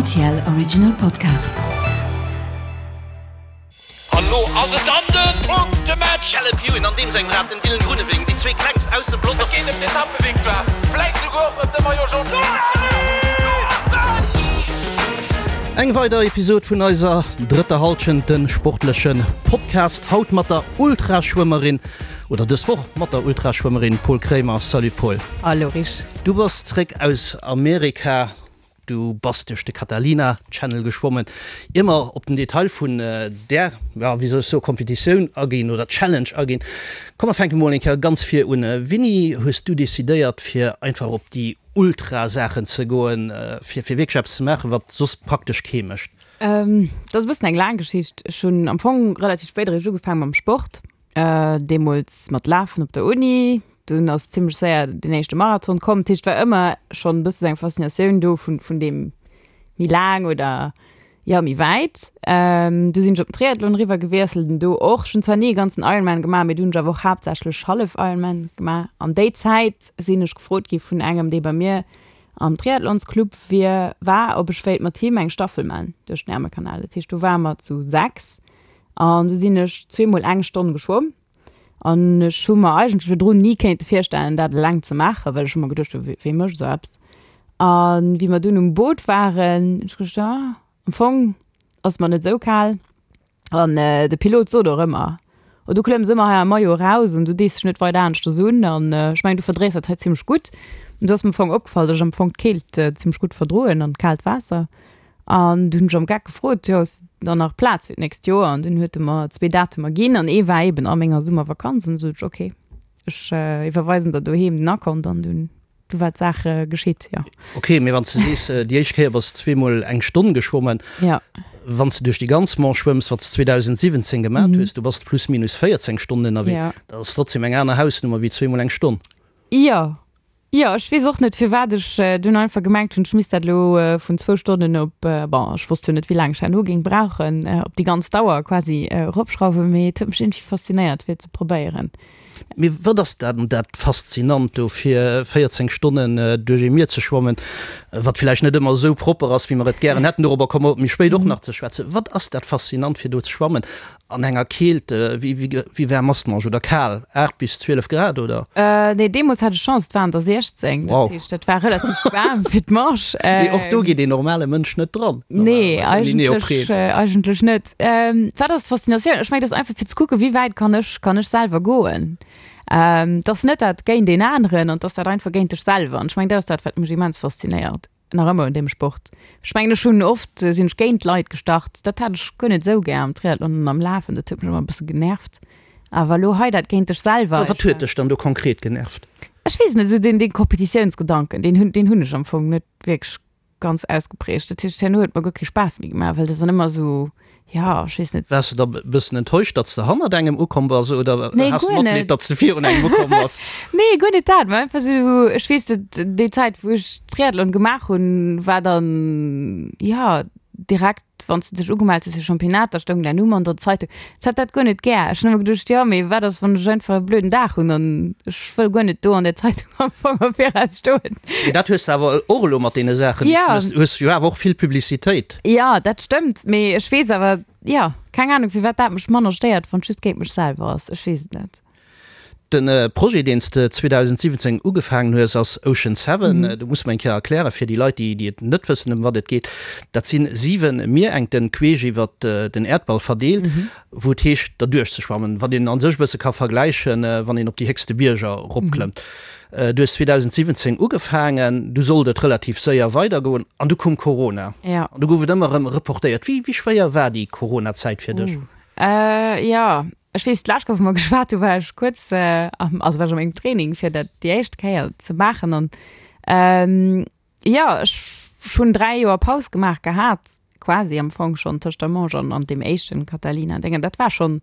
RTL Original Podcast. An lo ass et dann den Punktematch! Caleb Ewan an deem sengem Rad, den Dylan Groenewegen, déi zwee klengst aus dem Pelotong. Et geet ëm d'Etappevictoire, vläit souguer och ëm de Maillot Jaune. Eng weider Episod vun eiser drëtter Hallschent, de sportleche Podcast. Haut mat der Ultraschwëmmerin, oder dës Woch mat der Ultraschwëmmerin Paul Kremer. Salut Paul. Hallo Rich. Du bass zréck aus Amerika. Du bass duerch de Catalina Channel geschwommen. Ier mer op den Detail vun där, ja, wéi soll ech soen, Competitioun aginn oder Challenge aginn, komm mer fänke mol eng Kéier ganz vir un. Wéini hues du decidéiert fir einfach op déi Ultra-Saachen ze goen, fir fir wierklech eppes ze maachen, wat soss praktesch kee mécht? Dat ass e bëssen eng laang Geschicht. Ech hunn am Fong relativ spéit eréischt ugefaange mam Sport, deemools mat Lafen op der Uni. Dunn ass zimmlech séier den éischte Marathon komm. Dat heescht, et war ëmmer schonn e bësse sou eng Faszinatioun do vun, vun deem méi laang oder jo méi wäit. Du sinn ech op den Triathlon eriwwer gewiesselt an do och. Ech hunn zwar ni e ganzen Ironman gemaach, mee du hunn ech awer och haaptsächlech Hallef-Ironman gemaach. An déi Zäit sinn ech gefrot gi vun engem, dee bei mir am Triathlonsclub wier, war, ob ech wéilt mat him eng Staffel man duerch den Ärmelkanal. Dat heescht, do ware mer zu 6 an du sinn ech zweemol eng Stonn geschwomm. An ech hu mer eigentlech virdrun ni kéinte virstellen, dat eleng ze maachen, well ech hu mer geduecht hu, wee mécht esou eppes? A wéi mer dunn um Boot waren, hunn ech geduecht, ah, am Fong ass mer net esou kal. An de Pilot sot och ëmmer, oh, du klëmms ëmmer hei am Maillot eraus an du dees dech net weider aneschters un. An ech mengen, du verdréis dat hei zimmlech gutt. An du ass mir am Fong opgefall, datt ech am Fong d'Keelt zimmlech gutt verdroen an d'kaalt Waasser. An dunn hunn ech am Geck gefrot, jo, ass dann nach Plaz fir d'nächst Joer? An dunn huet e mer zwee Datumer ginn an ee war eben a menger Summervakanz. An du sot ech, ok, ech iwwerweisen der doheem den Akont an dunn, du war d'Saach geschitt, jo. Ok, mee wann s de sees, déi éischt Kéier bass de zweemol eng Stonn geschwommen, Ja. wann s de duerch déi ganz Manche schwëmms, wat s de 2017 gemat hues, du bass plus minus 14 Stonnen ënnerwee, Ja. dat ass trotzdem eng aner Hausnummer wéi zweemol eng Stonn. Jo, Jo, ech weess och net firwat ech dunn einfach gemengt hunn, ech misst dat elo vun zwou Stonnen op, bon, ech wosst jo net wéi laang ech herno géing brauchen, op déi ganz Dauer quasi eropschrauwen, mee et huet mech iergendwéi faszinéiert fir et ze probéieren. Mee wat ass dann dat Faszinant do fir 14 Stonnen duerch ee Mier ze schwammen, wat villäicht net ëmmer esou propper ass wéi mer et gären hätten, dorobber komme mer méi spéit och nach ze schwätzen. Wat ass dat Faszinant fir do ze schwammen An enger Keelt, wéi waarm ass d'Manche? Oder kal, 8 bis 12 Grad, oder? Nee, deemools hat ech Chance, et waren der 16. Wow. Dat heescht, dat war relativ waarm fir d'Manche. Mee och do geet een normale Mënsch net dran, Nee, normalerweis, ouni Neopren. eigentlech, eigentlech net. Wat ass d'Faszinatioun? Ech mengen, et ass einfach fir ze kucken, wéi wäit kann ech, kann ech selwer goen. Et ass net dat géint een aneren, an et ass dat einfach géint dech selwer. An ech mengen, dat ass dat, wat mech immens faszinéiert. Nach ëmmer un deem Sport. Ech mengen ech hunn oft sinn ech géint Leit gestart. Dat hat ech guer net esou gär am Triathlon an am Lafen. Dat huet mech ëmmer e bësse genervt. Awer elo hei dat géint dech selwer. Wat huet dech dann do konkret genervt? Ech weess net, esou deen dee Competitiounsgedanken, deen hunn deen hunn ech am Fong net wierklech ganz ausgeprägt. Dat heescht herno huet mer guer kee Spaass méi gemaach, well dat dann ëmmer esou Ja, ech weess net. Waars de da e bëssen enttäuscht, datt s de hannert engem ukomm bass oder Nee, has de guer Matleed, net. datt s de virun engem ukomm bass? Nee, guer net dat, mä einfach esou, ech weess, dat déi Zäit, wou ech Triathlon gemaach hunn, war dann, jo, direkt, wann s de dech ugemellt hues fir Championnat, da stoung däin Numm an der Zeitung. Ech hat dat guer net gär. Ech hunn ëmmer geduecht, jo, mee wat ass, wann ech einfach e blöden Dag hunn an ech wëll guer net do an der Zeitung am Fong am Viraus stoen. Mee dat hues de awer och elo mat deene Saachen, déi s Ja. du méchs, hues jo awer och vill Publicitéit. Jo, dat stëmmt, mee ech weess awer, jo, keng Ahnung firwat dat mech manner stéiert, wann et just géint mech selwer ass, ech weess et net. De Projet, deen s de 2017 ugefaangen hues, ass Ocean Seven. Du muss mer eng Kéier erklären, fir déi Leit, déi et net wëssen, ëm wat et geet. Dat si 7 Mierengten, queesch iwwer den Äerdball verdeelt, wou et heescht, derduerch ze schwammen, wat een a sech e bësse ka vergläichen, wann een op déi héchste Bierger eropklëmmt. Du hues 2017 ugefaangen, du sollt et relativ séier weidergoen an du koum Corona. Ja. An du gouf et ëmmer erëm reportéiert. Wéi, wéi schwéier war déi Corona-Zäit fir dech? Uh, jo, ech weess, d'lescht Kéier, wou mer geschwat hu war ech kuerz am, also war ech a mengem Training, fir dat déi éischt Kéier ze maachen an, Jo, ech hunn 3 Joer Paus gemaach gehat, quasi am Fong schonn tëscht der Manche an an deem éischten Catalina Déngen. Dat war schonn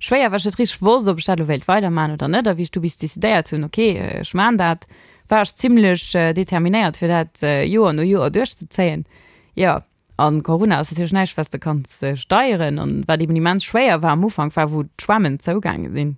schwéier, well ech net richteg wosst, ob ech dat elo wéilt weidermachen oder net. A wéi ech du bis decidéiert hunn, ok, ech maan dat, war ech zimlech determinéiert, fir dat Joer no Joer duerchzezéien. Jo, an Corona ass natierlech näischt, wat s de kanns steieren. An wat eben immens schwéier war am Ufank, war wou d'Schwämmen zougaange sinn.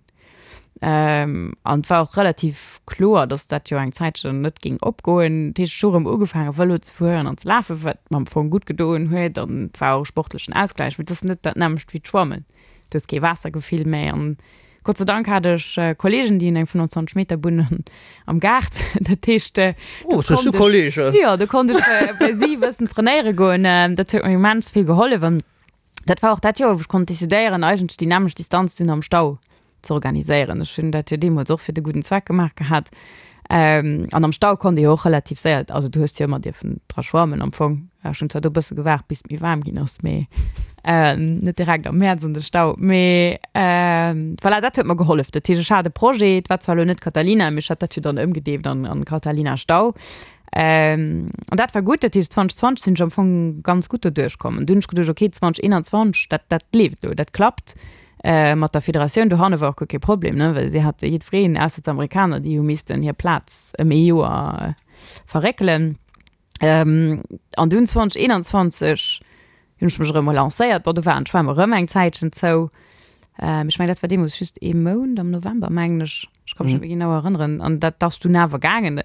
An et war och relativ kloer, datt dat jo eng Zäitchen net géing opgoen. Dat heescht, ech hu rëm ugefaange Vëlo ze fueren an ze lafen, wat mer am Fong gutt gedoen huet an et war och e sportlechen Ausgläich. Mee et ass net dat nämmlecht wéi d'Schwammen. Du hues kee Waassergefill méi an Gott sei Dank hat ech Kollegen, déi hunn eng 25 Meter Bunn am Gaart. Dat heescht, Oh, do hues du Kollegen! Jo, do konnt ech bei si e bëssen trainéiere goen. Dat huet mir immens vill gehollef an dat war och dat Joer, wou ech konnt decidéieren, eigentlech déi nämmlecht Distanz dunn am Stau ze organiséieren. Ech hunn dat jo deemools och fir de gudden Zweck gemaach gehat. An am Stau konnt ee jo och relativ séier, also du hues jo ëmmer dierfen dra schwammen am Fong. Ech hunn zwar do e bësse gewaart, bis et méi waarm ginn ass, mee net direkt am Mäerz an de Stau. Mee voilà, dat huet mer gehollef. Dat heescht, ech hat e Projet, et war zwar elo net Catalina, mee ech hat dat jo dann ëmgedeeft an an Catalina Stau. An dat war gutt. Dat heescht, 2020 sinn ech am Fong ganz gutt doduerch komm. An dunn hunn ech geduecht, okay, 2021, dat dat leeft elo, dat klappt. Mat der Federatioun dohanne war och guer kee Problem, ne, well si hate jiddwereen, ausser d'Amerikaner, déi hu missten hir Plaz ëm ee Joer verréckelen. An dunn 2021 hunn ech mech erëm relancéiert. Bon, do waren d'Schwämm erëm eng Zäitchen zou. Ech mengen, dat war deemools just ee Mount, am November, mengen ech. Ech ka mech net méi genau erënneren. An dat ass dunn awer gaangen.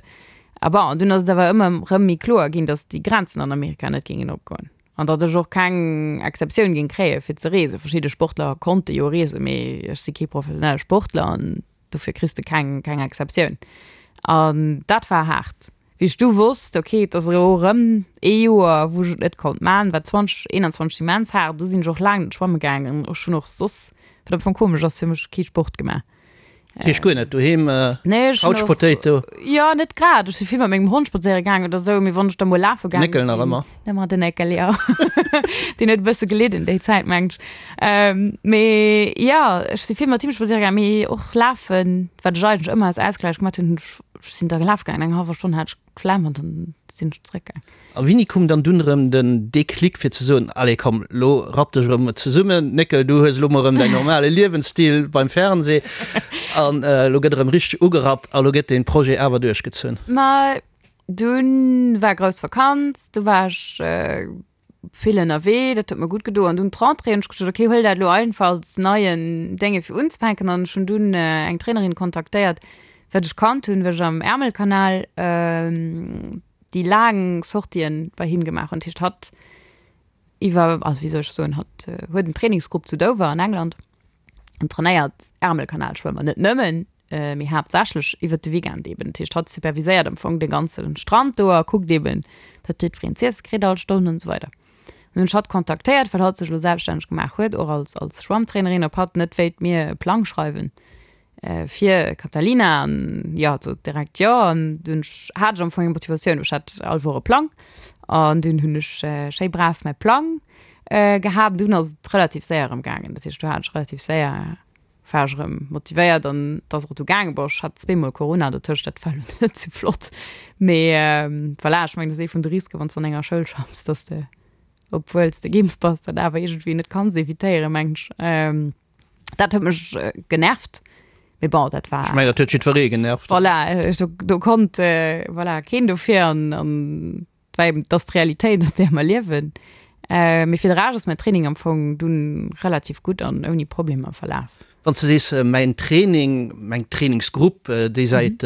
A bon, an dunn ass et awer ëmmer erëm méi kloer ginn, datt déi Grenzen an Amerika net géingen opgoen. An datt ech och keng Exceptioun géing kréie fir ze reesen. Verschidde Sportler konnte jo reesen, mee ech si kee professionelle Sportler an dofir kriss de keng, keng Exceptioun. An dat war haart. Wéi ech du wosst, ok, et ass elo erëm ee Joer, wou ech et net konnt man, war 2021 immens haart. Du sinn ech och laang net schwamme gaangen. Ech hunn och soss, wat am Fong komesch ass fir mech, kee Sport gemaach. Dat heescht guer net doheem, Nee, ech hun Couch och, Potato? jo, net grad. Ech si vill mat mengem Hond spadséiere gaangen oder sou, mee wann ech da mol lafe gaange Néckel nach sinn, ëmmer? ëmmer den Néckel, jo. Deen huet e bësse gelidden déi Zäit, mengen ech. Mee jo, ech si vill mat him spadséiere gaangen, mee och lafen, wat ech eigentlech ëmmer als Ausgläich gemaat hunn, hunn ech, ech sinn da lafe gaangen, eng hallwer Stonn hat ech d'Flemm an dann sinn ech zréckgaang. A wéini koum dann dunn erëm den Déclic fir ze soen, allez komm, lo rapp dech erëm zesummen, Néckel, du hues elo mol erëm däin normale Liewensstil beim Fernseh an elo gëtt erëm richteg ugerappt a lo gëtt dee Projet awer duerchgezunn? Ma dunn war grouss Vakanz, du war ech vill ënnerwee, dat huet mer gutt gedo. An dunn d'Rentrée hunn ech gesot, okay, huel dat elo einfach als neien Dénge fir unzefänken. An ech hunn dunn eng Trainerin kontaktéiert, wat ech kannt hunn, well ech am Ärmelkanal déi laang Sortien bei him gemaach hunn. Dat heescht, hatt iwwer, also wéi soll ech soen, hatt huet en Trainingsgrupp zu Dover an England an trainéiert Ärmelkanalschwëmmer, net nëmmen, mee haaptsächlech iwwert de Weekend eben. Dat heescht, hatt superviséiert am Fong de ganze Strand do a kuckt eben, datt jiddwereen z'iesse kritt all Stonn an esou weider. An hunn ech hatt kontaktéiert, well hatt sech elo selbststänneg gemaach huet, och als, als Schwammtrainerin, ob hatt net wéilt mir e Plang schreiwen fir Catalina. An jo, hatt sot direkt jo. An dunn hat ech am Fong eng Motivatioun, ech hat all Woch e Plang an dunn hunn ech schéi brav mäi Plang gehat. An dunn ass et relativ séier erëm gaangen. Dat heescht, do hat ech relativ séier war ech erëm motivéiert an et ass och du gaangen. Bon, ech hat zweemol Corona dotëscht, dat war elo net sou flott, mee voilà, ech mengen, dat ass ee vun de Risken, wann s de an enger Schoul schaffs, dass de, obwuel s de geimpft bass, dat awer iergendwéi net kanns evitéieren, mengen ech. Dat huet mech genervt, mee bon, dat war. Ech mengen, dat huet jiddweree genervt. Voilà, do, do konnt, voilà, keen dofir an, an Well eben, et ass d'Realitéit, an där mer liewen. Mee fir de Rescht ass mäin Training am Fong dunn relativ gutt an ouni Problemer verlaf. Wann s de sees, mäin Training, meng Trainingsgrupp, déi säit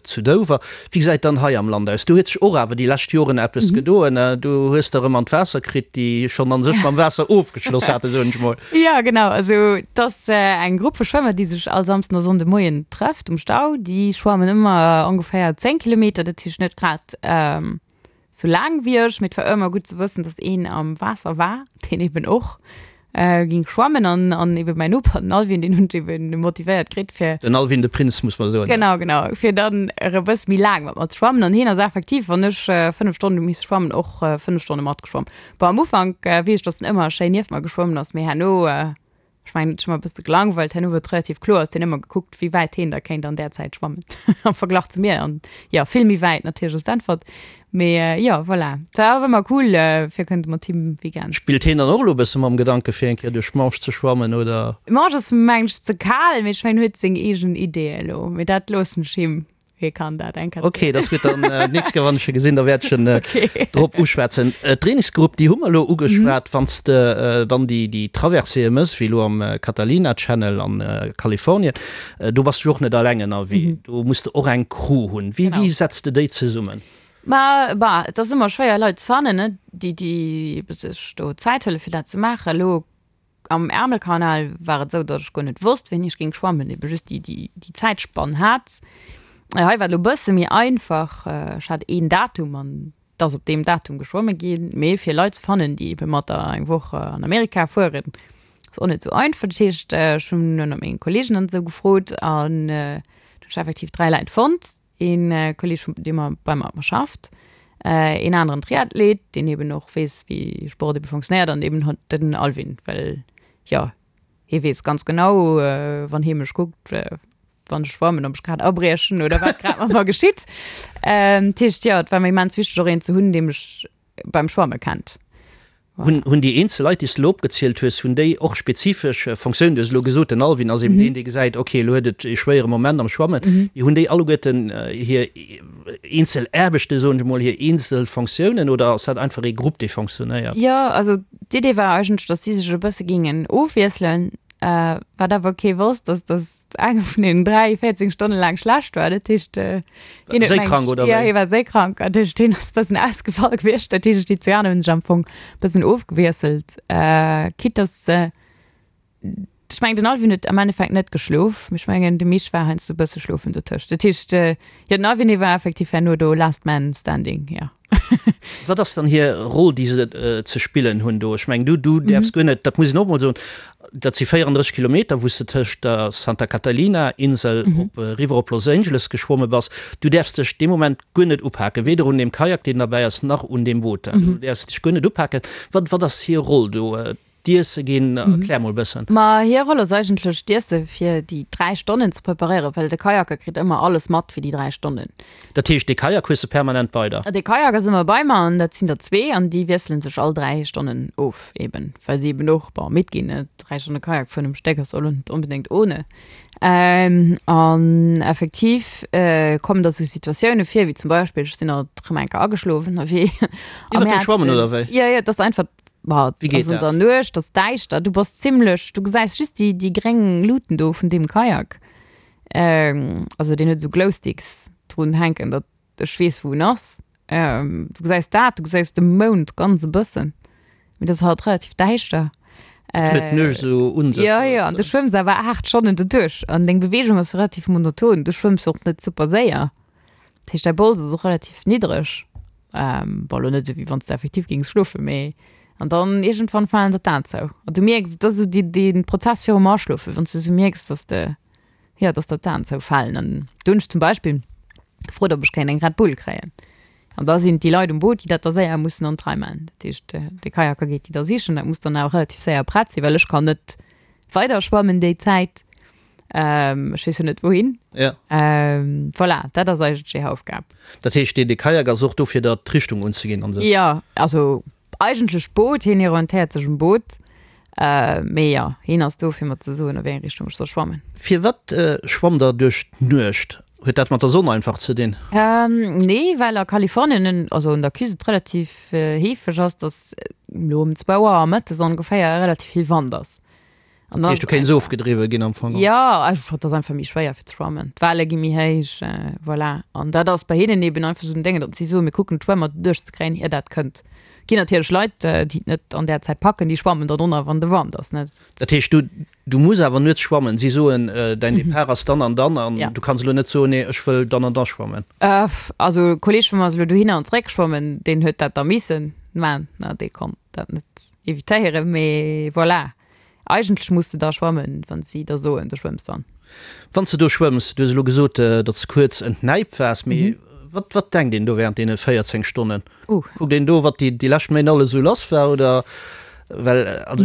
zu Dover, wéi gesäit dann hei am Land aus? Do huet sech och awer déi lescht Joren eppes gedoen. Du hues der erëm an d'Waasser kritt, déi schonn a sech mam Waasser ofgeschloss haten, soen ech mol. Jo, genau. Also et ass eng Grupp vu Schwëmmer, déi sech all Samsden a Sonnde Moien trëfft um Stau. Déi schwammen ëmmer ongeféier 10 Kilometer, dat heescht net grad Sou laang wéi ech, mee et war ëmmer gutt ze wëssen, dass een am Waasser war, deen eben och ging schwammen an an eben mäin Noper, den Alvin, deen hunn ech eben motivéiert kritt fir. Den Alvin de Prinz, muss mer soen. Genau, genau, fir dann erëm e bësse méi laang mat mer ze schwammen an hien ass effektiv, wann ech 5 Stonnen hu misse schwammen, och 5 Stonne matgeschwomm. Bon, am Ufank weess ech, dass en ëmmer schéin nieft mer geschwommen ass, mee herno Ech mengen, et huet mech e bësse gelangweilt. Herno wor et relativ kloer, ass hien ëmmer gekuckt, wéi wäit heen da kéint an där Zäit schwammen am Verglach zu mir. An jo, vill méi wäit natierlech ass d'Äntwert. Mee jo, voilà. Et war awer ëmmer cool, fir kënnte mat him Weekends. Spillt heen dann och elo e bësse mam Gedanke fir eng Kéier duerch d'Manche ze schwammen, oder? D'Manche ass mengen ech ze kal, mee ech mengen, en huet seng eegen Ideeë elo. Mee dat loossen ech him. Hie kann dat eng Kéier Ok, dat ass gutt. Dann d'nächst Kéier, wann ech e gesinn, da wäert ech en drop uschwätzen. D'Trainingsgrupp, déi hu mer elo ugeschwat. Wann s de dann déi, déi Traverséeë méchs, wéi elo am Catalina Channel an Kalifornien, do bass du jo och net eleng ënnerwee. Do muss de och eng Crew hunn. Wéi, wéi setz de déi zesummen? Ma bah, et ass ëmmer schwéier Leit ze fannen, ne, déi, déi ebe sech do Zäit huele fir dat ze maachen. Elo Am Ärmelkanal war et esou, datt ech guer net wosst, wéini ech géing schwammen, ebe just déi, déi, déi Zäitspann hat. Hei war et elo e bësse méi einfach, ech hat een Datum an et ass op deem Datum geschwomme ginn. Mee fir Leit ze fannen, déi ebe mat der eng Woch an Amerika fueren, ass och net esou einfach. Dat heescht, ech hunn ënner menge Kolleegen an esou gefrot an do hunn ech effektiv 3 Leit fonnt. Een Kolleg vun deem mer bei mer schafft, een aneren Triathlet, deen eben och weess wéi Sport ebe funktionéiert an eben den Alvin, well jo hie weess ganz genau wann hie mech kuckt wann ech schwammen, ob ech grad abriechen oder wat grad mat mer geschitt. Dat heescht jo, et war mir immens wichteg och een ze hunn, dee mech beim Schwamme kennt. Hunn, hunn déi eenzel Leit, déi s de elo opgezielt hues, hunn déi och spezifesch Fonctiounen? Du hues elo gesot, den Alvin ass eben deen, dee gesäit, okay, elo huet et ee schwéiere Moment am Schwammen. Mee hunn déi alleguerten hir eenzel Aarbechten, soen ech emol, hir eenzel Fonctiounen oder ass dat einfach ee Grupp, dee fonctionnéiert? Jo, also d'Idee war eigentlech, datt si sech e bësse géingen ofwiesselen, wat awer kee wosst, ass, datt Eng vun den 3 14 Stonne laang schlecht war. Dat heescht, äh, hien huet Séikrank oder Ja, hie war séikrank. Dat heescht, hien ass bëssen ausgefall gewiescht. Dat heescht, déi zwee aner hunn sech am Fong bëssen ofgewiesselt. Äh, quitte dass, äh, ech mengen, den Alvin huet am Endeffekt net geschlof. Mee ech mengen, de Mich war heiansdo e bësse schlofen dotëscht. Dat heescht, äh, jo, den Alvin, dee war effektiv herno do last man standing, ja. Wat ass dann hir Roll, déi se ze spillen hunn do? Ech mengen, du, du däerfs guer net, dat muss een och emol soen, dat si 34 Kilometer, wou s de tëscht der Santa Catalina Insel op eriwwer op Los Angeles geschwomme bass. Du däerfs dech dee Moment guer net upaken, weder un deem Kajak, deen derbäi ass, nach un deem Boot. Du däerfs dech guer net upaken. Wat, wat ass hir Roll do? D'Iesse ginn? Erklär mol e bëssen. Ma hir Roll ass eigentlech d'Iesse fir déi 3 Stonnen ze preparéieren, well de Kajaker kritt ëmmer alles mat fir déi 3 Stonnen. Dat heescht, dee Kajak hues de permanent bei der? De Kajak ass ëmmer bei mer an dat sinn der zwee an déi wiessele sech all 3 Stonnen of eben, well si eben och, bon, midd ginn, ne? 3 Stonne Kajak fueren um Stéck ass och lo net onbedéngt ohne. An effektiv kommen da sou Situatioune vir, wéi zum Beispill, ech sinn alt erëm eng Kéier ageschlof ënnerwee. Iwwer dem Schwammen oder wéi? Jo, jo, et ass einfach Bah, Wéi geet ass an dat? der Nuecht, ass däischter, du bass zimmlech, du gesäis just déi, déi gréng Luuten do vun deem Kajak. Ähm, also deen huet esou Glowsticks drun hänken, datt ech weess, wou en ass. Ähm, du gesäis dat, du gesäis de Mound ganz e bëssen, mee dat ass halt relativ däischter. Et huet d'Nuecht esou un sech. Jo, jo, an du schwëmms awer 8 Stonnen doduerch an deng Beweegung ass relativ monoton, du schwëmms och net super séier. Dat heescht, däi Bols ass och relativ niddreg. Ähm, bon, lo net esou, wéi wann s de effektiv géings schlofen, mee an dann iergendwann falen der d'Aen zou. An du mierks, et ass esou dee, dee Prozess virum Aschlofen, wann s de esou mierks, dass de, jo, dass der d'Aen zoufalen. An do hunn ech zum Beispill gefrot, ob ech kéint eng Red Bull kréien. An da sinn et déi Leit um Boot, déi dat da séier mussen an d'Rei man. Dat heescht, de Kajaker geet déi da sichen. Dat muss dann awer relativ séier prett sinn, well ech kann net weider schwammen déi Zäit. Ähm, ech weess jo net wouhin. Ja. Ähm, voilà, dat ass eigentlech déi Aufgab. Dat heescht, dee, dee Kajak ass och do fir der d'Richtung unzeginn an sech? Ja, also eigentlech d'Boot, hien orientéiert sech um Boot. Äh, mee jo, hien ass do fir mer ze soen, a wéi eng Richtung ech soll schwammen. Firwat schwammt der duerch d'Nuecht? Huet dat mat der Sonn einfach ze dinn? Ähm, nee, well a Kalifornien, also un der Küst, et relativ heefeg ass, datt elo ëm zwou Auer mëttes ongeféier relativ vill Wand ass. An dat heescht, du kéints ofgedriwwe ginn am Fong? Jo, einfach, et ass einfach méi schwéier fir ze schwammen. D'Welle gi méi héich, voilà. An dat ass bei hinnen eben einfach esou den Déngen, datt si soen, mir kucken d'Schwëmmer duerchzekréien, ier dat kënnt. Ginn natierlech Leit, déi et net an där Zäit packen, déi schwammen dann ënner, wann de Wand ass, net? Dat heescht, du, du muss awer nuets schwammen. Si soen, däin Depart ass dann an dann an du kanns elo net soen, nee, ech wëll dann an da schwammen. Also e Kolleeg vu mer ass elo dohinner an zeréck geschwommen, deen huet dat da missen man, dee konnt dat net evitéieren, mee voilà. Eigentlech muss de da schwammen, wann si der soen, du schwëmms dann. Wann s de do schwëmms, du hues elo gesot, datt s kuerz entnäipt waars, mee wat, wat denkt een do während deene 14 Stonnen? Kuckt een do, wat déi, déi lescht Méint alles esou lass war, oder? Well, also,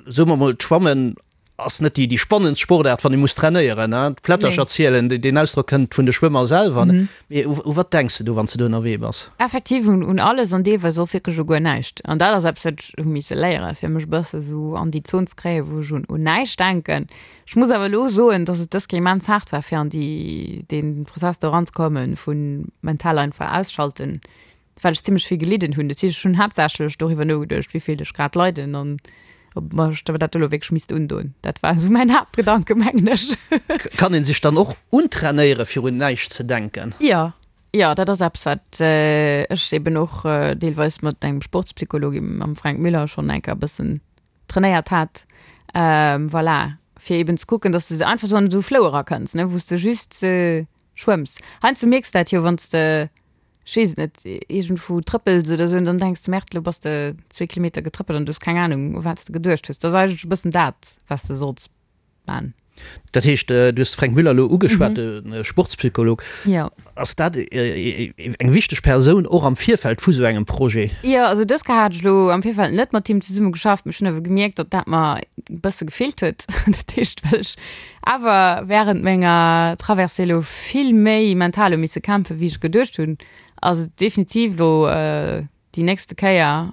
soe mer mol, d'Schwammen. Ass net déi spannendst Sportaart, wann ee muss trainéieren, hein? D'Plättercher zielen, deen Ausdrock kënnt vun de Schwëmmer selwer. Mee u wat denks de do, wann s de do ënnerwee bass? Effektiv un alles an deelweis och wierklech u guer näischt. An dat ass eppes, wat ech hu misse léieren, fir mech e bësse sou an déi Zon ze kréien, wou ech un näischt denken. Ech muss awer elo soen, dass et dës Kéier immens haart war, fir an déi, dee Prozess do eranzekommen vu mental einfach ausschalten. well ech zimmlech vill gelidden hunn. Dat heescht, ech hunn haaptsächlech doriwwer nogeduecht, wéi vill ech grad leiden an ob mer ech dat elo wierklech misst undoen. Dat war esou mäin Haaptgedanke, mengen ech. Kann een sech dann och untrainéiere fir un näischt ze denken? Jo, jo, dat ass eppes, wat ech eben och deelweis mat engem Sportspsycholog, mam Fränk Müller, schonn eng Kéier e bëssen trainéiert hat. Voilà, fir eben ze kucken, dass de einfach esou an esou Flow erakënns, ne, wou s de just schwëmms. Heiansdo mierks de dat jo, wann s de, ech weess et net, iergendwou trëppels oder esou an dann denks de, Merde, elo bass de zwee Kilometer getrëppelt an du hues keng Anung, u wat s de geduecht hues. Dat ass eigentlech e bëssen dat, wat s de solls man. Dat heescht, du hues de Fränk Müller elo ugeschwat, de Sportspsycholog. Jo. Ass dat eng wichteg Persoun och am Virfeld vu sou engem Projet? Jo, also dës Kéier hat ech elo am Virfeld net mat him zesumme geschafft, mee ech hunn awer gemierkt, datt dat mer e bësse gefeelt huet. Dat heescht, well ech awer während menger Traversée elo vill méi mental hu misse kämpfen, wéi ech geduecht hunn, ass et definitiv elo déi nächste Kéier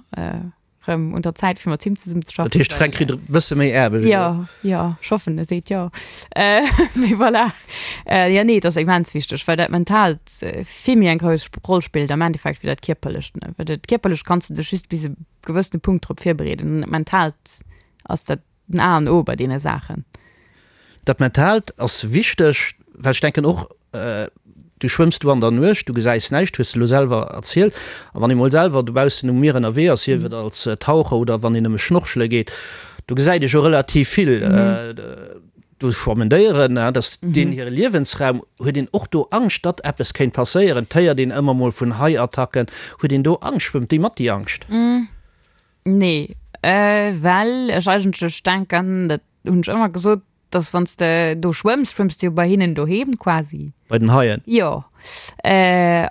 rëm un der Zäit, fir mat him zesummen ze schaffen. Dat heescht, Fränk kritt e bësse méi Aarbecht elo? Jo, jo, ech hoffen, e seet jo. Mee voilà. Jo, nee, et ass immens wichteg, well dat Mentaalt vill méi eng grouss Roll spillt am Endeffekt wéi dat Kierperlecht, ne. Well dat Kierperlecht kanns de dech just bis e gewëssene Punkt drop virbereeden an dat Mentaalt ass dat Den A an O bei deene Saachen. Dat Mentaalt ass wichteg, well ech denken och, du schwëmms do an der Nuecht, du gesäis näischt, hues de elo selwer erzielt. A wann ee mol selwer dobaussen um Mier ënnerwee ass, sief et als Taucher oder wann een nëmme schnorchele geet, do gesäit ee jo relativ vill. Do schwammen Déieren, dat ass deenen hire Liewensraum. Huet een och do Angscht, datt eppes kéint passéieren? Et héiert een ëmmer mol vun Hai-Attacken. Huet een do Angscht? Schwëmmt déi mat, déi Angscht? Nee, well ech eigentlech denken, dat hunn ech ëmmer gesot, dass wann s de do schwëmms, schwëmms de jo bei hinnen doheem quasi. Bei den Haien? Jo.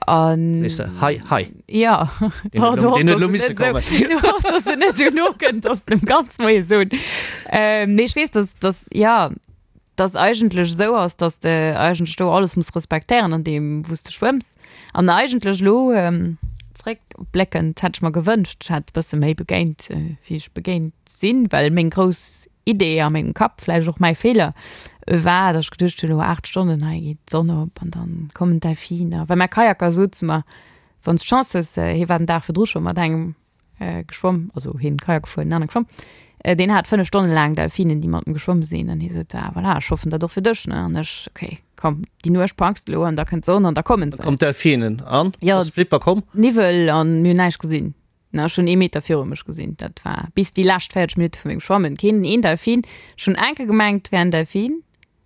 An. Sees de, Hai, Hai. Jo. Deen huet elo, deen huet elo misse kommen. Du hoffs, dass en net esou no kënnt, dass de em ganz Moie soen. Nee, ech weess, dass, dass, jo, dass eigentlech esou ass, dass de eigentlech do alles muss respektéieren an deem wou s de schwëmms. An eigentlech elo zréckbléckend hätt ech mer gewënscht, ech hätt e bësse méi begéint wéi ech begéint sinn, well meng grouss Idee a mengem Kapp, vläicht och mäi Feeler, war, datt ech geduecht hunn, elo 8 Stonnen, hei geet d'Sonn op an dann kommen d'Delfiner. Well mäi Kajaker sot zu mer, wann s d'Chance hues, hie war den Dag virdru scho mat engem geschwomm, also hien Kajak gefuer, den anere geschwomm, deen hat 5 Stonne laang Delfinen, déi mat em geschwomm sinn an hie sot, ah voilà, ech hoffen dat och fir dech, ne? An ech, okay, komm, déi Nuecht packs de elo an da kënnt d'Sonn an da kommen se. Komm d'Delfinen an? Jo. Ass Flipper komm? Niwwel an mir hunn näischt gesinn, ne? Ech hunn ee Meter viru mech gesinn, dat war bis déi lescht 40 Minutte vu mengem Schwammen keen een Delfin. Ech hunn enke gemengt, et wär en Delfin,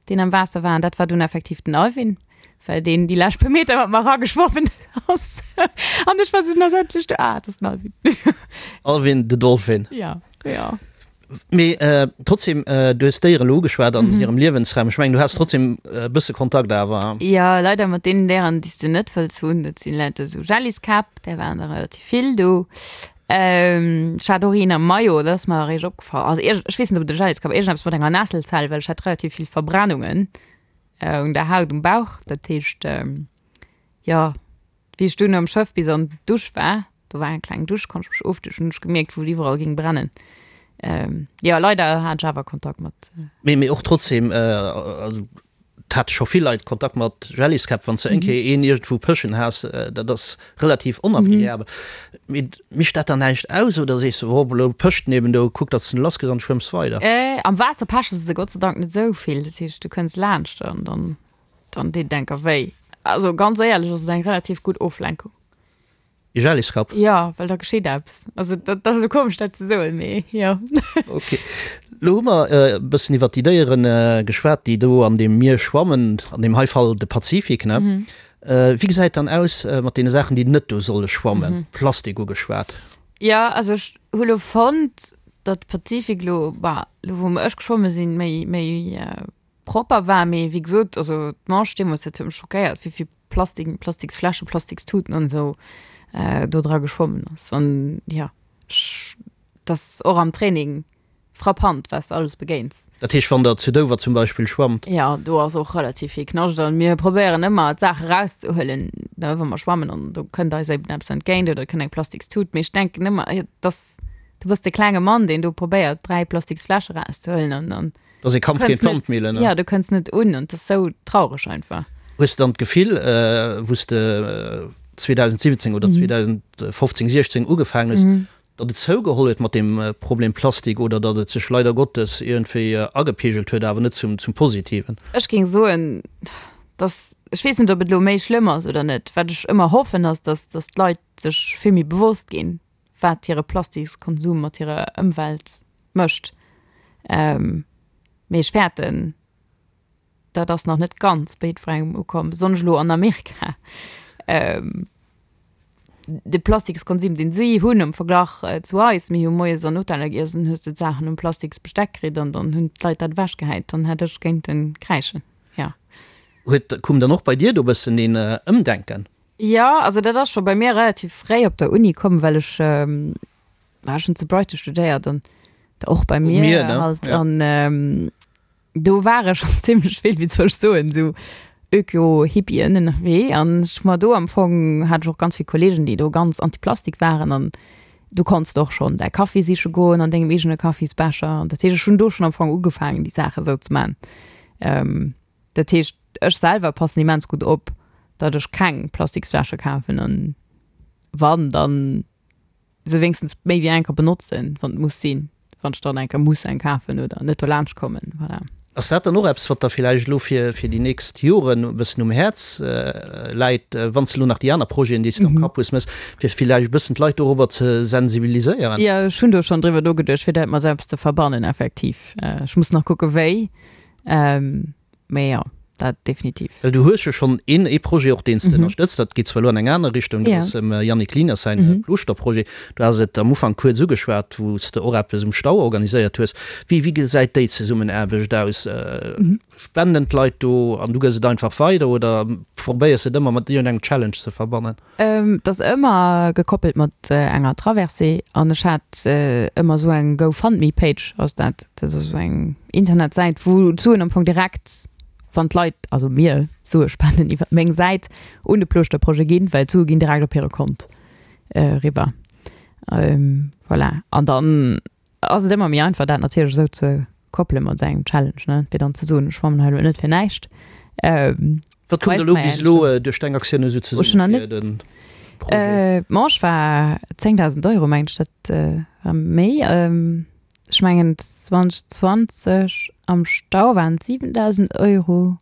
deen am Waasser war, an dat war dunn effektiv den Alvin, well deen déi lescht puer Meter mat mer erageschwommen ass. An ech war sou, na endlech do, ah, et ass den Alvin. Alvin the Dolphin. Ja, ja. Mee trotzdem, du hues d'Déieren elo ugeschwat an hirem Liewensraum. Ech mengen, du has trotzdem e bësse Kontakt awer. Jo, leider mat deenen Déieren, déi s de net wëlls hunn. Dat sinn lauter esou Jelliskäpp, där waren der relativ vill do. Ech hat och een am Maillot, dat ass mer eréischt opgefall. Also ierg, ech weess net, ob et e Jelliskapp, iergendeppes mat enger Nesselzell, well ech hat relativ vill Verbrennungen un der Haut um Bauch. Dat heescht, jo, wéi ech dunn am Schëff bis an d'Dusch war, do war eng kleng Dusch, konnt ech mech ofduschen, hunn ech gemierkt, wou et iwwerall géing brennen. Jo, leider hat ech awer Kontakt mat. Mee, mee och trotzdem, also Et hate scho vill Leit Kontakt mat Jelliskäpp. Wann s de eng Kéier een iergendwou pëschen has, dat ass relativ onagreabel. Mee mécht dat dann näischt aus oder sees de, oh, elo pëscht en eben do, kuck datt s de en lass kriss an schwëmms weider? Am Waasser peche se Gott sei Dank net esou vill. Dat heescht, du kënns laanscht an dann, dann deet et enker wéi. Also ganz éierlech ass et eng relativ gutt Oflenkung. E Jelliskapp? Jo, well da geschitt eppes. Also dat ass elo komesch dat ze soen, mee jo. Ok. Lo hu mer e bëssen iwwert déi Déiere geschwat, déi do an deem Mier schwammen, an deem hei Fall de Pazifik, ne? Wéi gesäit dann aus mat deene Saachen, déi net do solle schwammen? Plastik ugeschwat. Jo, also ech hu lo fonnt, datt de Pazifik lo, bah, lo wou ech geschwomme sinn, méi, méi propper war, mee wéi gesot, also d'Manche deemools, dat huet mech schockéiert, wéi vill Plastik, Plastiksfläschen, Plastikstuten an esou do dra geschwommen ass. An jo, ech, dat ass och am Training. Frappant, wat s de alles begéins. Dat heescht, wann der zu Dover zum Beispill schwammt? Jo, do ass och relativ vill Knascht an mir probéieren ëmmer d'Saache rauszehuelen, ne, wa mer schwammen an do kënnt eis eben eppes entgéint oder et kënnt eng Plastikstut. Mee ech denken ëmmer, et ass, du bass de klenge Mann, deen do probéiert, 3 Plastiksfläsche rauszehuelen an dann Dat ass ee Kampf géint kënns net, d'Wandmillen, ne? jo, du kënns net un an et ass sou traureg einfach. Hues de dann d'Gefill, wou s de 2017 oder 2015, 16 ugefaangen hues, Datt et zougeholl huet mat deem Problem Plastik oder datt et sech leider Gottes iergendwéi agepeegelt huet, awer net zum Positiven. Ech géing soen, datt, ech weess net, ob et elo méi schlëmm ass oder net. Wat ech ëmmer hoffen, ass, datt, datt d'Leit sech vill méi bewosst ginn, wat hire Plastikskonsum mat hirer Ëmwelt mécht. Mee ech fäerten, dat ass nach net ganz bei jiddwerengem ukomm, besonnesch elo an Amerika. De Plastikskonsum, deen si hunn am Verglach zu eis, mir hu moies an Hoteller giess an hues de d'Saachen um Plastiksbesteck kritt an dann hunn d'Leit dat ewechgehäit, dann hätt ech géinten kräischen, jo. Huet, koum dann och bei dir do e bëssen een Ëmdenken? Jo, also dat ass scho bei mir relativ fréi op der Uni komm, well ech, ech hunn zu Brighton studéiert an och beim Mier halt an Do ware schonn zimmlech vill, wéi soll ech soen, esou Öko-Hippien ënnerwee an ech mer do am Fong hat ech och ganz vill Kollegen, déi do ganz anti-Plastik waren an du konns de och schonn däi Kaffi siche goen an dengem eegene Kaffisbecher an dat heescht, ech hunn do schonn am Fong ugefaangen, déi Saache esou ze man. Dat heescht, ech selwer passen immens gutt op, datt ech keng Plastiksfläsche kafen an wann, dann se wéinstens méi wéi eng Kéier benotzen, wann et muss sinn, wann ech dann eng Kéier muss eng kafen oder net dolaanscht kommen, voilà. Ass dat dann och eppes, wat der villäicht elo fir fir déi nächst Joren e bëssen um Häerz läit, wann s de elo nach déi aner Projeten, déi s de am Kapp hues, méchs, fir villäicht e bëssen d'Leit dorobber ze sensibiliséieren? Jo, ech hunn do schonn driwwer nogeduecht, fir dat mat eppes ze verbannen, effektiv. Ech muss nach kucke wéi. Mee jo, dat definitiv. Well du hues jo schonn een ee Projet och, deen s de ënnerstëtzt. Dat geet zwar elo an eng aner Richtung, dat ass dem Yannick Lieners säin Plooschter-Projet. Du has et am Ufank kuerz ugeschwat, wou s de och eppes um Stau organiséiert hues. Wéi wéi gesäit déi Zesummenaarbecht aus? Spenden d'Leit do an du gëss et einfach weider oder probéiers et ëmmer mat iergendengem Challenge ze verbannen? Et ass ëmmer gekoppelt mat enger Traversée an ech hat ëmmer esou eng GoFundMe-Page ass dat. Dat ass esou eng Internetsäit, wou d'Suen am Fong direkt, wann d'Leit, also mir, Sue spenden iwwer meng Säit, un de Plooschter-Projet ginn, well d'Sue ginn direkt op hire Kont eriwwer. Voilà. An dann Ass et ëmmer méi einfach dat natierlech esou ze koppele mat esou engem Challenge, ne, fir dann ze soen, ech schwammen hei elo net fir näischt. Wat koum da elo bis elo duerch deng Aktioun esou zesumme fir de Projet? D'Manche war 10.000 Euro, mengen ech, dat war méi. Ech mengen 2020 am Stau waren et 7.000 Euro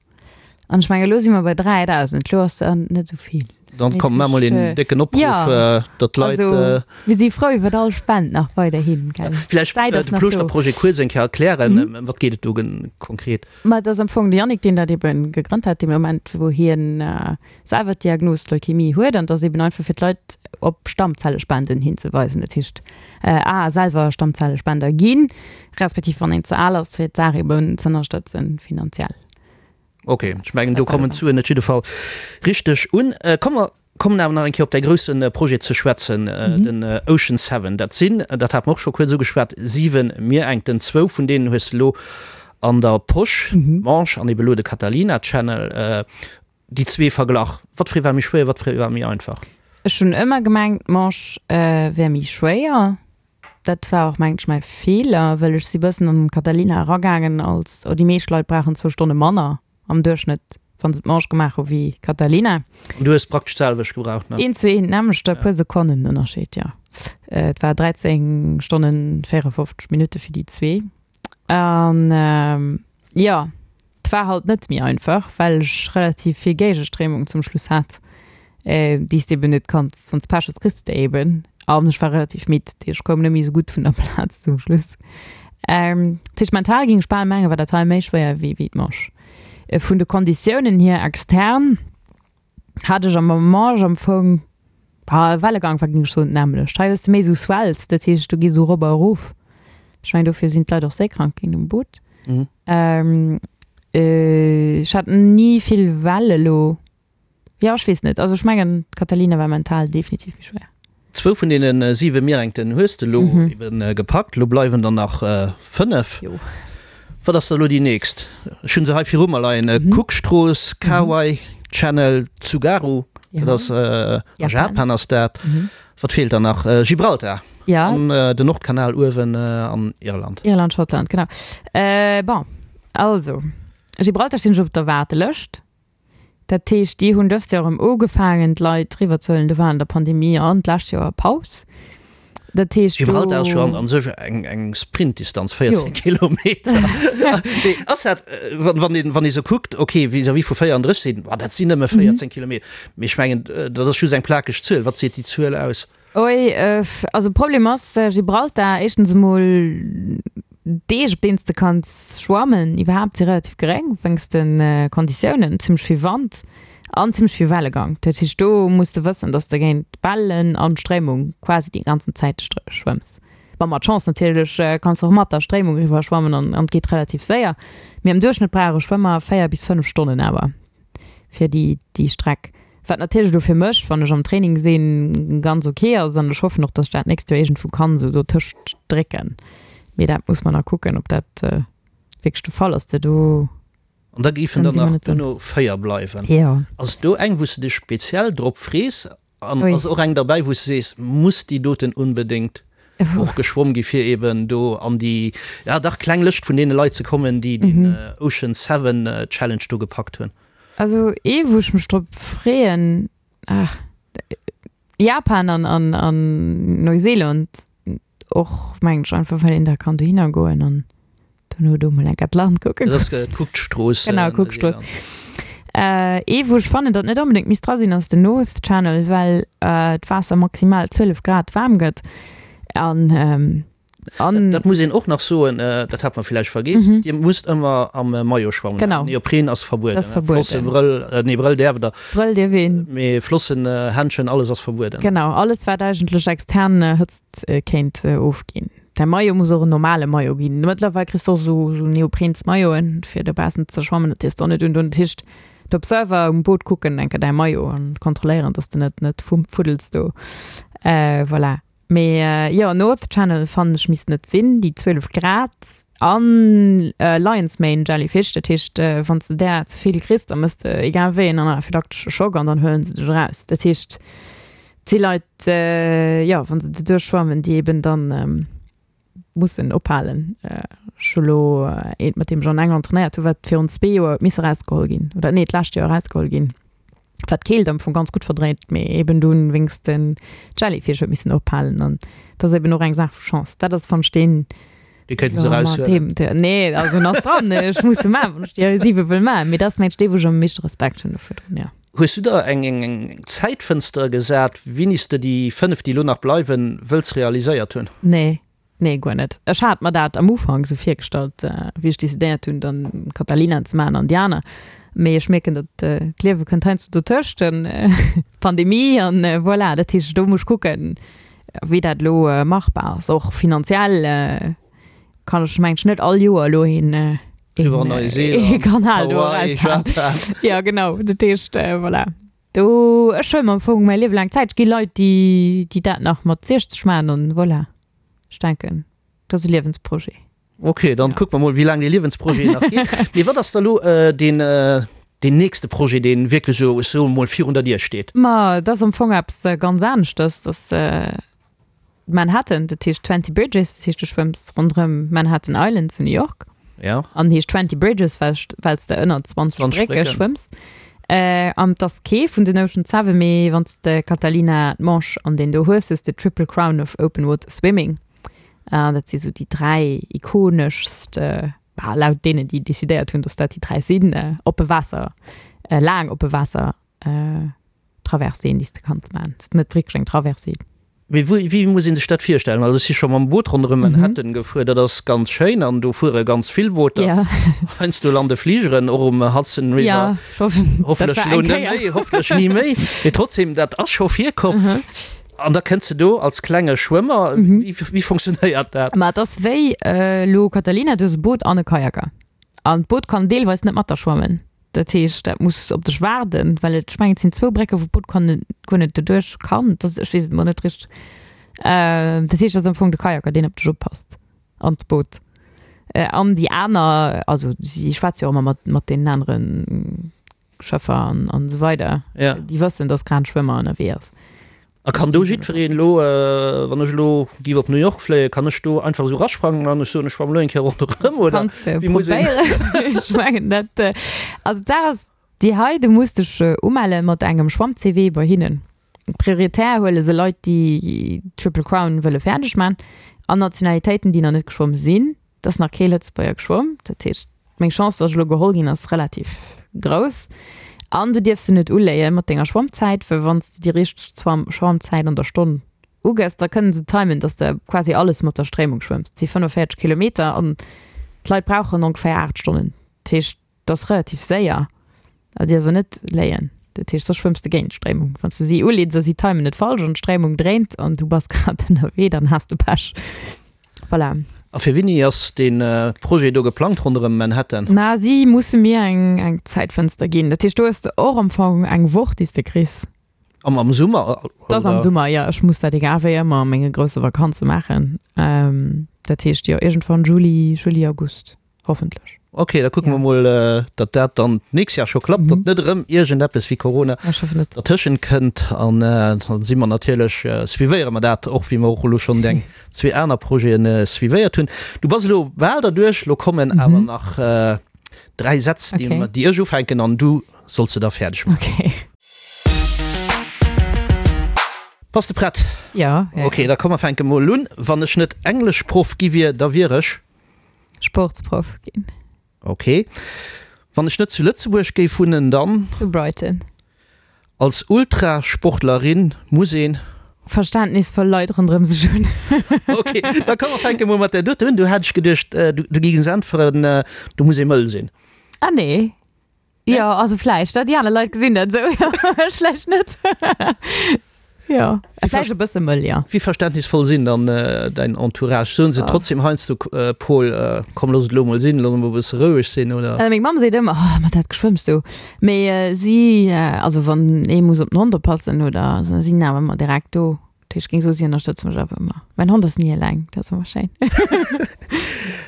an ech mengen elo si mer bei 3.000, elo ass dat net esou vill. Dann kommt mar mol een décken Opruff, Ja, datt d'Leit. also mir si frou iwwer all Spend nach weiderhin, gell. Vläicht D'Säit ass de nach do. Plooschter-Projet kuerz eng Kéier erklären. Ëm wat geet et do konkret? Ma et ass am Fong de Yannick, deen dat ebe gegrënnt hat, dee Moment, wou hien selwer d'Diagnos Leukämie huet. An et ass eben einfach fir d'Leit op Stammzellespenden hinzeweisen. Dat heescht, a selwer Stammzellespender ginn, respektiv wann een ze al ass, fir d'Saach eben z'ënnerstëtzen finanziell. Ok, ech mengen do kommen d'Suen net jidde Fall richteg un. Komm mer kommen awer nach eng Kéier op däi grousse Projet ze schwätzen, den Ocean Seven. Dat sinn, dat hate mer och scho kuerz ugeschwat, 7 Mierenkten. Zwou vun deenen hues de elo an der Posch, d'Manche an ebe elo de Catalina Channel. Déi zwee verglach, wat fir ee war méi schwéier, wat fir ee war méi einfach? Ech hunn ëmmer gemengt, d'Manche wär méi schwéier. Dat war och mengen ech mäi Feeler, well ech si bëssen an d'Catalina eragaangen als, oh déi meescht Leit brauchen zwou Stonne manner am Duerchschnëtt, wa se d'Manche gemaach hu wéi Catalina. An du hues praktesch d'selwecht gebraucht, ne? Eent zu eent d'nämmlecht, e puer Sekonnen Ënnerscheed, jo. Et war 13 Stonnen 54 Minutte fir déi zwee. An jo, 't war halt net méi einfach, well ech relativ vill Géigestréimung zum Schluss hat, déi s de eben net kanns, wann s Pech hues, kriss de déi eben. An ech war relativ midd, dat heescht ech koum net méi esou gutt vun der Plaz zum Schluss. Dat heescht mental géing ech bal mengen, war dat hei méi schwéier wéi d'Manche. Vun de Konditiounen hier extern hat ech am Manche am Fong, ah, Wellegang war géing ech soen d'nämmlecht. Hei hues de méi esou Swells, dat heescht du gees esou erop a erof. Ech mengen dofir sinn d'Leit och séikrank ginn um Boot. Ech hat ni vill Well elo. Jo, ech weess net. Also ech mengen d'Catalina war mental definitiv méi schwéier. Zwou vun deene siwe Mierengten hues de elo ebe gepackt. Elo bleiwen der nach 5. Jo. Wat ass da elo déi nächst? Ech hu se hei viru mer leien, Cookstrooss, Kauai Channel, Tsugaru, dat ass a Japan ass dat. Wat feelt dann nach? Gibraltar an den Nordkanal uewen an Irland. Irland, Schottland, genau. Bon, also Gibraltar stinn ech op der Waardelëscht. Dat heescht, déi hunn dëst Joer erëm ugefaangen, d'Leit eriwwerzehuelen. Do war an der Pandemie an d'lescht Joer Paus. Dat heescht, do. Gibraltar ass jo an sech eng Sprintdistanz, 14 Kilometer. Mee ass dat, wann een, wann ee sou kuckt, ok, vis-à-vis vu 34 sinn, boah, dat sinn nëmme 14 Kilometer. Mee ech mengen, dat ass just eng plakeg Zuel. Wat seet déi Zuel aus? Oi, also de Problem ass, Gibraltar, éischtens emol d'Deeg, op deenen s de kanns schwammen iwwerhaapt, si relativ geréng wéinst de Konditiounen, zimmlech vill Wand an zimmlech vill Wellegang. Dat heescht, do muss de wëssen, dass de géint Wellen an Stréimung quasi déi ganzen Zäit schwëmms. Bon, mat Chance natierlech kanns de och mat der Stréimung eriwwer schwammen an et geet relativ séier, mee am Duerchschnëtt brauch e Schwëmmer 4 bis 5 Stonnen awer fir déi Streck. Wat natierlech elo fir mech, wann ech am Training sinn, ganz ok ass an ech hoffen och, dass ech dat d'nächst Joer iergendwou kann esou dotëscht drécken. Mee dat muss mer nach kucken, ob dat wierklech de Fall ass. De do. An da géifen der nach duerno 4 bleiwen. Jo. Ass do eng, wou s de dech speziell drop frees? An ass och eng derbäi, wou s de sees, muss déi doten unbedéngt och geschwomm gi fir eben do an déi, ja dach kleng Lëscht vun deene Leit ze kommen, déi den Ocean Seven Challenge do gepackt hunn? Also ee wou ech mech drop freeën, ah, Japan an an an Neuseeland och mengen ech einfach well een da kann dohinner goen an dono do mol enker d'Land kucke Dat ass d'Cookstrooss. Genau, Cookstrooss. Ee wou ech fannen datt net onbedéngt misst dra sinn ass den North Channel, well d'Waasser maximal 12 Grad waarm gëtt an An dat muss een och nach soen, dat hat mer villäicht vergeess, Dir musst ëmmer am Maillot schwammen. Genau. Neopren ass verbueden. Ass verbueden. Flossen, Brëll, nee Brëll däerft der. Brëll dierf een. Mee Flossen, Händschen, alles ass verbueden. Genau, alles wat eigentlech extern Hëtzt kéint ofginn. Däi Maillot muss och en normale Maillot ginn. Mëttlerweil kriss de och esou esou neoprens Mailloten fir dobaussen ze schwammen, dat dierfs de och net undoen. Dat heescht, d'Observer um Boot kucken enker däi Maillot an kontrolléieren, dass de net net fuddels do. Voilà. Mee jo, North Channel fannen ech misst net sinn, déi 12 Grad an Lion's Mane Jellyfish, dat heescht wann s de där ze vill kriss, da mëss de egal wéi en anaphylaktesche Schock an dann huelen se dech eraus. Dat heescht et si Leit, jo wa se doduerch schwammen, déi eben dann mussen ophalen. Ech hu lo eent mat deem ech an England trainéiert hu wat virun zwee Joer huet misse erausgeholl ginn oder nee d'lescht Joer erausgeholl ginn. Wat d'Keelt am Fong ganz gutt verdréit, mee eben dunn wéinst den Jellyfish huet missen ophalen an dat ass eben och eng Saach vu Chance. Dat ass fannen ech deen Dee kéinten se eraushuelen. Nee, also en ass dran, ech muss e maachen, wann ech déi 7 wëll maachen, mee dat ass mengt ech dee wou ech am meeschte Respekt hunn dovun, jo. Hues du der eng eng Zäitfënster gesat, wéini s de déi 5, déi elo nach bleiwen, wëlls realiséiert hunn? Nee, nee guer net. Ech hat mer dat am Ufank esou virgestallt, wéi ech decidéiert hunn, dann Catalina ze maachen an déi aner. Mee ech mierken, datt d'Liewe kënnt heiansdo dotëscht, d'Pandemie an voilà. Dat heescht, do muss ech kucken, wéi dat elo machbar ass. Och finanziell kann ech mengen ech net all Joer elo een een Kanal do eraushaen. Jo genau, dat heescht voilà. Do ech huele mer am Fong mäi Liewe laang Zäit. Et gi Leit, déi déi dat nach mat 60 maachen an voilà. Ech denken, dat ass e Liewensprojet. Ok, dann kucke mer mol, wéi laang dee Liewensprojet nach geet. Mee wat ass da lo deen, deen nächste Projet, deen wierklech esou, ech soe mol, virun der Dier steet? Ma et ass am Fong eppes ganz aneschters. Dat ass Manhattan, dat heescht Twenty Bridges, dat heescht du schwëmms ronderëm Manhattan Island zu New York. Ja. An heescht Twenty Bridges, well well s de ënner 20 20 Brécke Brécken. schwëmms. An et ass kee vun den Ocean Seven, mee wann s de Catalina, d'Manche an deen do hues, hues de Triple Crown of Open Water Swimming. An dat si sou déi 3 ikoneschst, bah, laut deenen, déi decidéiert hunn, dass dat déi 3 sinn, oppe Waasser, laang oppe Waasser Traverséen, déi s de kanns maachen. Et ass net wierklech eng Traversée. Mee wéi, wéi muss ee sech dat virstellen? Also ech si scho mam Boot ronderëm Manhattan gefuer, dat ass ganz schéin an do fuere ganz vill Booter. Ja. Heiansdo lande Fligeren och um Hudson River. Ja, ech hoffen, dat Hoffentlech war elo eng net Kéier. méi, hoffentlech ni méi. Mee trotzdem, dat ass scho virkomm. An da kënns de do als klenge Schwëmmer. Wéi, wéi funktionéiert dat? Ma et ass wéi elo Catalina, du hues e Boot an e Kajaker. An d'Boot kann deelweis net mat der schwammen. Dat heescht, dat muss op dech waarden, well et, ech mengen, et sinn zwou Brécken, wou d'Boot kann guer net doduerch kann. Dat, ech weess et mol net richteg. Dat heescht, et ass am Fong de Kajaker, deen op dech oppasst an d'Boot. An déi aner, also si schwätze jo och ëmmer mat, mat deenen anere Schëffer an, an esou weider. Ja. Déi wëssen, dass grad en Schwëmmer ënnerwee ass. A kann do jiddwereen elo, wann ech elo géif op New York fléien, kann ech do einfach esou rasprangen an ech soen, ech schwammen elo eng Kéier ronderëm, oder Kanns de wéi muss een. probéieren. Ech mengen dat, also d'Saach ass déi hei, du muss dech umelle mat engem Schwamm-CV bei hinnen. Prioritär huele se Leit, déi d'Triple Crown wëlle fäerdeg man an Nationalitéiten, déi nach net geschwomm sinn. Et ass nach kee Lëtzebuerger geschwomm, dat heescht meng Chance, datt ech elo geholl ginn, ass relativ grouss. An du dierfs se net uléie mat denger Schwammzäit, well wann s de déi richteg Schwammzäit an der Stonn ugëss, da kënnen se timen, datt s de quasi alles mat der Stréimung schwëmms. Et si 45 Kilometer an d'Leit brauchen ongeféier 8 Stonnen. Dat heescht, Dat ass relativ séier, awer déi ass awer net léien. Dat heescht, soss schwëmms de géint d'Stréimung. Wann s de si uleeds a si timen et falsch an d'Stréimung dréint an du bass grad ënnerwee, dann has de Pech. Voilà. A fir wéini ass dee Projet do geplangt ronderëm Manhattan? Na, si musse mir eng eng Zäitfënster ginn. Dat heescht, do hues de och am Fong eng Woch, déi s de kriss. Am am Summer? Dat ass am Summer, jo. Ech muss dat egal wéi ëmmer a menge grousse Vakanze maachen. Dat heescht, jo, iergendwann Juli, Juli, August. Hoffentlech. Ok, da kucke mer mol, datt dat dann d'nächst Jahr scho klappt, datt net erëm iergendeppes wéi Corona dertëschent kënnt. An da si mer natierlech, suivéiere mer dat och, wéi mer och elo schonn deng zwee aner Projete suivéiert hunn. Du bass elo bal derduerch, elo kommen awer nach dräi Sätz, déi ech ufänken an du solls se da fäerdeg maachen. Bass de prett? Jo. Ok, da komm mer fänke mol un. Wann ech net Engleschproff gi wier, da wier ech. Sportsproff ginn. Ok. Wann ech net zu Lëtzebuerg géif wunnen, dann? Zu Brighton. Als Ultrasportlerin muss een? Verständnisvoll Leit ronderëm sech hunn. Ok, da komm mer fänke mol mat där dote un. Du hat ech geduecht, du géings äntweren, du muss ee mëll sinn. Ah nee. Jo, also vläicht, déi aner Leit gesinn dat esou, jo, ech vläicht net. Jo, vläicht e bësse mëll, jo. Wéi verständnisvoll sinn dann däin Entourage? Soen se trotzdem heiansdo, Paul, komm looss et elo mol sinn, looss emol e bësse roueg sinn, oder? Meng Mamm seet ëmmer, oh, mat dat Geschwëmms do. Mee si, also wann ee muss op den Hond oppassen oder, si sinn awer ëmmer direkt do. Dat heescht, ech géing soen, si ënnerstëtze mech awer ëmmer. Mäin Hond ass ni eleng, dat ass ëmmer schéin.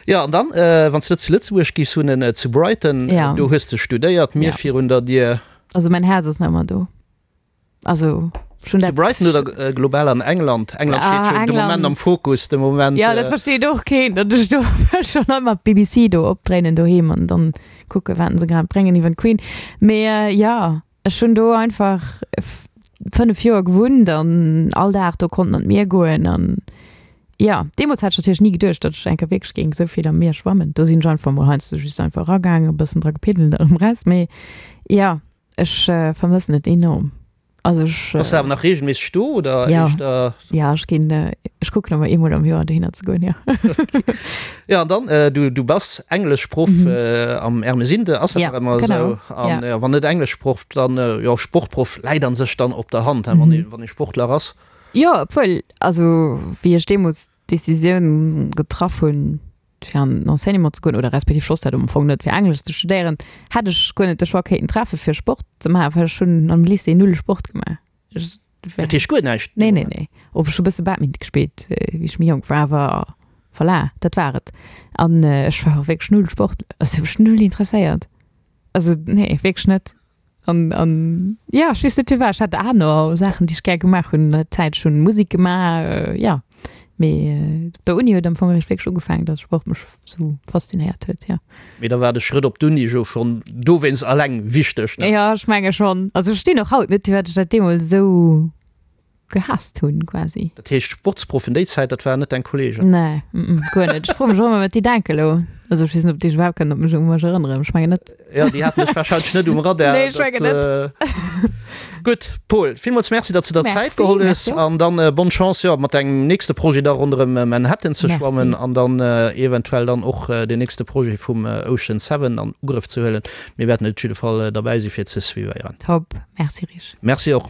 Jo, an dann, wann s de zu Lëtzebuerg giffs wunnen, zu Brighton, do hues de studéiert, Mier virun der Dier. Also mäin Häerz ass nach ëmmer do. Also ech hunn dat. Zu Brighton oder global an England? England steet jo de Moment am Fokus, de Moment. Jo, dat versteet och keen, datt ech do schonn ëmmer d'BBC do opdréinen doheem an dann kucke wat se grad bréngen iwwer d'Queen. Mee jo. Ech hunn do einfach 5 Joer gewunnt an all Dag do konnten an d'Mier goen an jo, deemools hat ech natierlech ni geduecht, datt ech eng Kéier wierklech géing esou vill am Mier schwammen. Do sinn ech einfach mol heiansdo just einfach eragaangen, e bëssen dra gepiddelt an erëm raus. Mee jo, ech vermëssen et enorm. Also ech. Bass de awer nach reegelméisseg do oder éischter? Jo, ech ginn, ech kucken ëmmer eemol am Joer dohinner ze goen, jo. Jo, an dann, du, du bass Engleschproff am Ermesinde, ass dat nach ëmmer esou? An wann net Engleschproff, dann jo Sportproff, läit an sech dann op der Hand, wann ee, wann ee Sportler ass. Jo, obwuel, also wéi ech deemools d'Decisioun getraff hunn, fir an den Enseignement ze goen, oder respektiv ech wosst dat am Fong net, fir Englesch ze studéieren, hätt ech guer net de Choix kéinten treffe fir Sport ze maachen, well ech hunn am Lycée null Sport gemaach. Ech, Dat heescht guer näischt? Nee, nee, nee. Op ech hu bësse Badminton gespillt, wéi ech méi jonk war, awer voilà, dat war et. An ech war och wierklech null Sport, also hu mech null interesséiert. Also nee, wierklech net. An, an ja, ech weess net firwat, ech hat aner Saachen, déi ech gär gemaach hunn an der Zäit. Ech hunn Musek gemaach, jo. Mee op der Uni huet am Fong eréischt wierklech ugefaangen, datt Sport mech sou faszinéiert huet, jo. Mee da war de Schrëtt op d'Uni jo schonn dowéinst alleng wichteg, ne? Jo, ech menge schonn. Also ech verstinn och haut net, firwat ech dat deemools esou gehaasst hunn quasi. Dat heescht Sportsproffen déi Zäit, dat waren net deng Kollegen? Nee, guer net. Ech froe mech och ëmmer, wat déi denken elo. Also ech weess net, ob déi sech iwwerhaapt kënnen op mech, u mech erënneren. Ech mengen net. Jo, déi haten dech wahrscheinlech net um Radar. Nee, ech mengen net. Gutt, Paul, villmools Merci, datt s de der Zäit geholl hues. Merci, merci och. An dann bonne Chance, jo, mat dengem nächste Projet da ronderëm Manhattan ze schwammen an dann eventuell dann och deen nächste Projet vum Ocean Seven an Ugrëff ze huelen. Mir wäerten op jidde Fall derbäi si fir ze suivéieren. Top, merci Rich. Merci och.